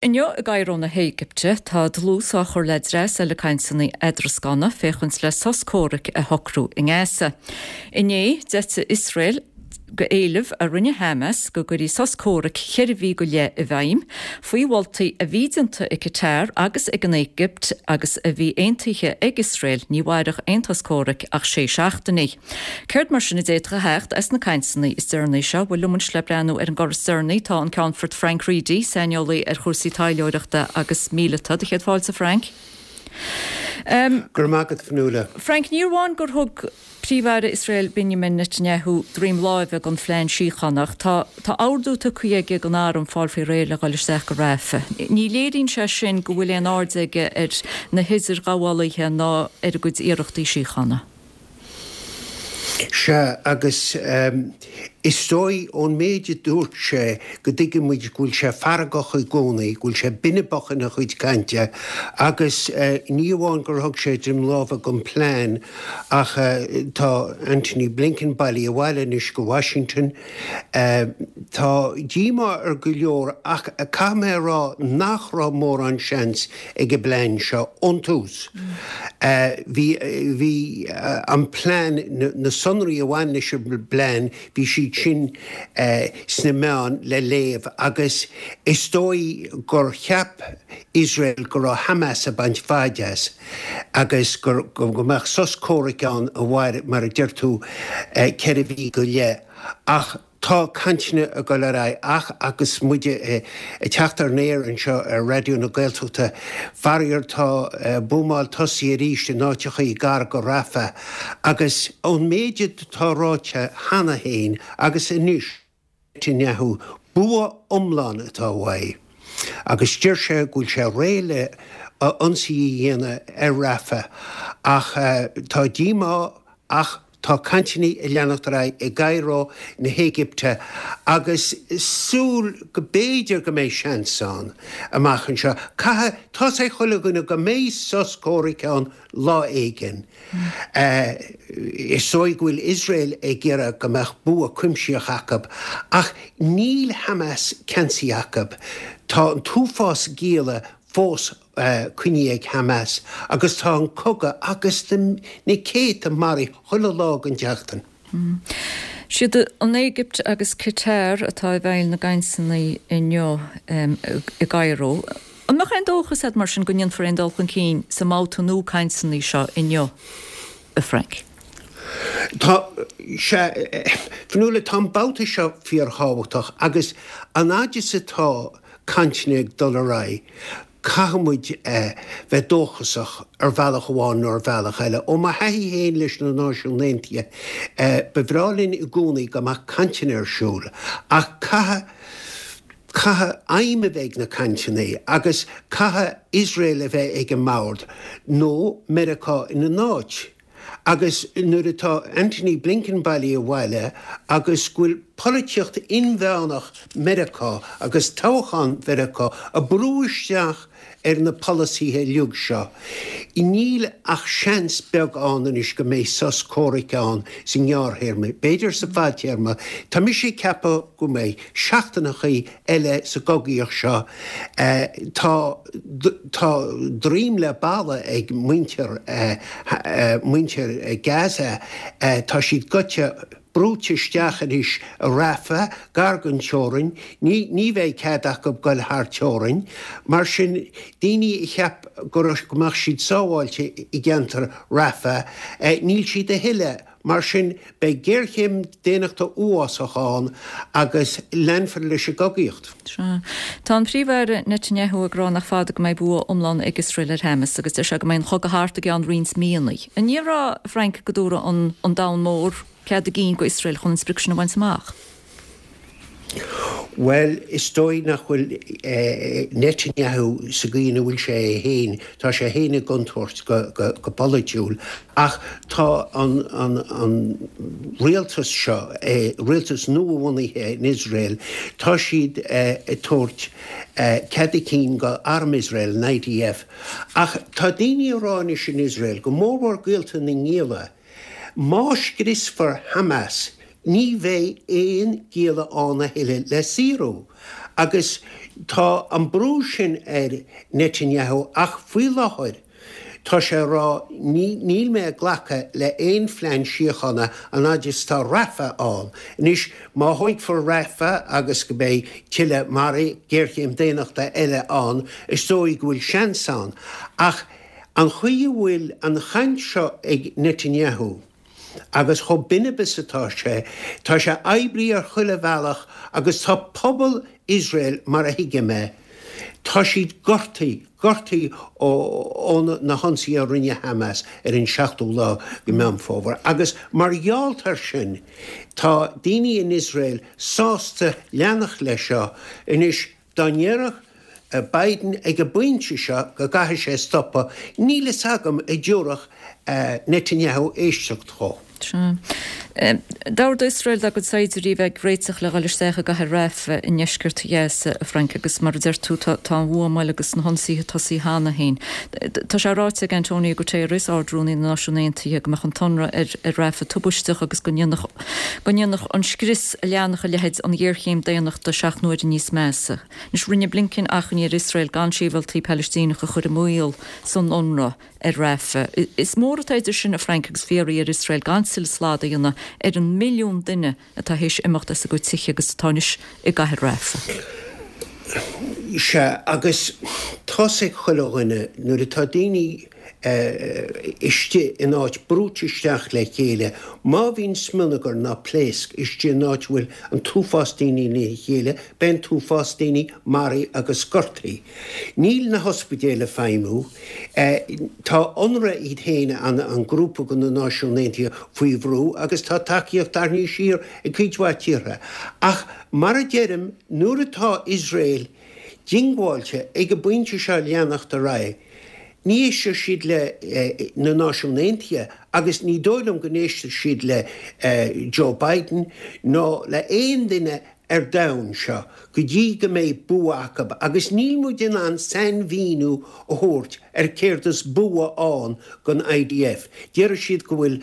Inniu i gCairo na hÉigipte, tá dlús á chur le dreas eile cainteanna eadrascána féachaint le sos comhraic a shocrú i nGaza. Inné, d'eitigh Iosrael go éileamh a rinne Hamas go gcuirfí sos comhraic cheithre mhí go leith i bhfeidhm, faoi mholtaí a bhí déanta ag Qatar agus ag an Éigipt agus a bhí aontaithe ag Iosrael, ní mhairfeadh aon sos comhraic ach sé seachtainí. Céard mar sin a d'fhéadfadh a theacht as na cainteanna is deireanaí seo? Bhuel, liom anois le breathnú ar an gcor is deireanaí tá an Ceannfort Frank Reidy, saineolaí ar chúrsaí taidhleoireachta agus míleata. Do chéad fáilte, Frank. Go raibh maith agat, Fionnuala. Frank, ní amháin gur thug Príomh-Aire Iosrael Benjamin Netanyahu droim láimhe don phlean síochána ach tá tá ordú tugtha aige don arm fáil faoi réir le dhul isteach go Rafah. Ní léiríonn sé sin go bhfuil aon aird aige ar na hidirghabhálaithe ná ar a gcuid iarrachtaí síochána. Sea, agus is dóigh ón méid a dúirt sé go dtuigeann muid go bhfuil sé feargach i gcónaí, go bhfuil sé binibeach ina chuid cainte agus ní amháin gur thug sé droim láimhe don phlean ach tá Antony Blinken bailithe abhaile anois go Washington. Tá díomá ar go leor ach caithfidh mé a rá nach raibh mórán seans ag an bplean seo ón tús. Bhí, bhí an plean, na sonraí a bhain leis an bplean, bhí siad sin sna meáin le léamh agus is dóigh gur cheap Iosrael go raibh Hamas ag baint faid as agus go, go mbeadh sos comhraic ann a mhair, mar a deir tú, 4 mhí go leith. Ach. Tá cainteanna ag dul ar aghaidh ach agus muid ag teacht ar an aer anseo ar Raidió na Gaeltachta, faraor tá buamáil tosaithe arís in áiteachaí gar go Rafah agus ón méid atá ráite cheana féin agus anois Netanyahu, bua iomlán atá uaidh agus deir sé go bhfuil sé réidh le ionsaí a dhéanamh ar Rafah ach tá díomá ach Tá cainteanna ag leanacht ar aghaidh i gCairo na hÉigipte agus súil go b'fhéidir go mbeidh seans ann amach anseo. Caithfidh, tá's ag chuile dhuine go mbeidh sos comhraic ann lá éigin. Is dóigh go bhfuil Iosrael ag iarraidh go mbeadh bua cuimsitheach acu ach níl Hamas ceansaithe acu. Tá an t-uafás gialla fós coinnithe ag Hamas agus tá an cogadh agus na céadta maraithe chuile lá den tseachtain. Siad an Éigipt agus Qatar atá i bhfeighil na gcainteanna inniu i gCairo. An mbeadh aon dóchas agat mar sin go ndéanfar aon dul chun cinn sa mbabhta nua cainteanna seo inniu, a Frank? Tá, sea, Fionnuala, tá an babhta seo fíorthábhachtach agus an fhaid is atá cainteanna ag dul ar aghaidh, caithfidh muid bheith dóchasach ar bhealach amháin nó ar bhealach eile. Ó mo thaithí féin leis na Náisiúin Aontaithe, ba bhreá linn i gcónaí go mbeadh cainteanna ar siúl, ach caithfidh, caithfidh aidhm a bheith ag na cainteanna agus caithfidh Iosrael a bheith ag an mbord nó Meiriceá ina n-áit. Agus nuair atá Antony Blinken bailithe abhaile agus go bhfuil polaitíocht inmheánach Mheiriceá agus toghchán Mheiriceá ag brú isteach ar na polasaithe uilig seo, níl ach seans beag ann anois go mbeidh sos comhraic ann sa ngearrthéarma. B'fhéidir sa bhfadtéarma. Tá mise ag ceapadh go mbeidh seachtaineachaí eile sa gcogaíocht seo. Tá tá droim le balla ag muintir muintir Gaza. Tá siad goite, brúite isteach anois i Rafah, gar don teorainn. Ní ní bheidh cead acu goil thar teorainn. Mar sin, daoine a cheap go raibh go mbeadh siad sábháilte i gceantar Rafah, níl siad a thuilleadh. Mar sin, beidh géarchéim daonnachta uafásach ann agus leanfar leis an gcogaíocht. Sea. Tá an Príomh-Aire Netanyahu ag rá nach fada go mbeidh bua iomlán ag Iosrael ar Hamas agus deir sé go mbeidh an chogadh thart i gceann roinnt míonna. An ndéarfá, a Frank, go dtabharfaidh an domhan mór cead a gcinn go Iosrael chun an sprioc sin a bhaint amach? Bhuel, is dóigh nach bhfuil Netanyahu sa gcaoi ina bhfuil sé é féin, tá sé féin i gcontúirt go polaitiúil, ach tá an rialtas seo, rialtas nua-bhunaithe in Iosrael, tá siad ag tabhairt cead a cinn go arm Iosrael, an IDF. Ach tá daoine ag rá anois in Iosrael, go mórmhór gaolta na ngialla, Má scriosfar Hamas, ní bheidh aon gialla ann a thuilleadh le saorú. Agus. Tá an brú sin ar Netanyahu ach faoi láthair tá sé ag rá níl mé ag glacadh le aon phlean síochána an fhaid is tá Rafah ann. Anois má thógfar Rafah agus go mbeidh tuilleadh maraithe, géarchéim daonnachta eile ann, is dóigh go bhfuil seans ann. Ach an chaoi a bhfuil an chaint seo ag Netanyahu, Agus chomh binib is atá sé, tá sé oibrithe ar chuile bhealach agus tá pobal Iosrael, mar a thuigim é, tá siad gortaithe, gortaithe ó na hionsaithe a rinne Hamas ar an seachtú lá de Meán Fómhair. Agus mar gheall air sin, tá daoine in Iosrael sásta leanacht leis seo. Anois, Dá ndéarfadh Biden ag an bpointe seo go gcaithfidh sé stopadh, níl fhios agam an dtabharfadh Netanyahu éisteacht dhó. Sea. D'ordaigh Iosrael dá gcuid saighdiúirí a bheith ag réiteach le dhul isteach i gcathair Rafah i ndeisceart Ghaza, a Frank, agus mar a deir tú, tá an bhuamáil agus na hionsaithe tosaithe cheana féin. Tá sé ráite ag Antonio Guterres, Ard-Rúnaí na Náisiún Aontaithe, go mbeadh an t-ionradh ar Rafah tubaisteach agus go ndéanfadh go ndéanfadh an scrios a leanfadh a leithéid an ghéarchéim daonnachta seacht n-uaire níos measa. Anois, rinne Blinken achainí ar Iosrael gan sibhialtaigh Palaistíneacha a chur i mbaol san ionradh ar Rafah. Is mór atá idir sin, a Frank, agus fiafraí ar Iosrael gan tuilleadh slad a dhéanamh ar an milliún duine atá théis imeacht as a gcuid tithe agus atá anois i gcathair Rafah. Sea, agus tá's ag chuile dhuine, nuair atá daoine istigh in áit brúite isteach le chéile. Má bhíonn smionagar ná pléasc istigh in áit a bhfuil an t-uafás daoine lena chéile, beidh an t-uafás daoine maraithe agus gortaithe. Níl na hospidéil ag feidhmiú. Tá Unrwa iad féin, an grúpa de na Náisiúin Aontaithe, faoi bhrú agus tá tacaíocht tarraingthe siar ag cuid mhaith tíortha. Ach mar a deirim, nuair atá Iosrael diongbháilte ag an bpointe seo leanacht ar aghaidh, Ní éistfidh siad le na Náisiúin Aontaithe agus ní dóigh liom go n-éistfidh siad le Joe Biden ná le aon duine ar domhan seo go dtí go mbeidh bua acu agus níl muid in ann sainmhíniú a thabhairt ar céard is bua ann don IDF. Déarfaidh siad go bhfuil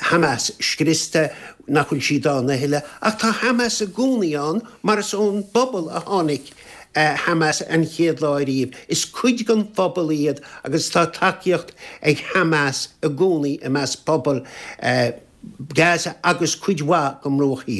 Hamas scriosta, nach bhfuil siad ann a thuilleadh, ach tá Hamas i gcónaí ann mar is ón bpobal a tháinig Hamas an chéad lá ariamh. Is cuid den phobal iad agus tá tacaíocht ag Hamas i gcónaí i measc pobal Gaza agus cuid mhaith den mBruach Thiar.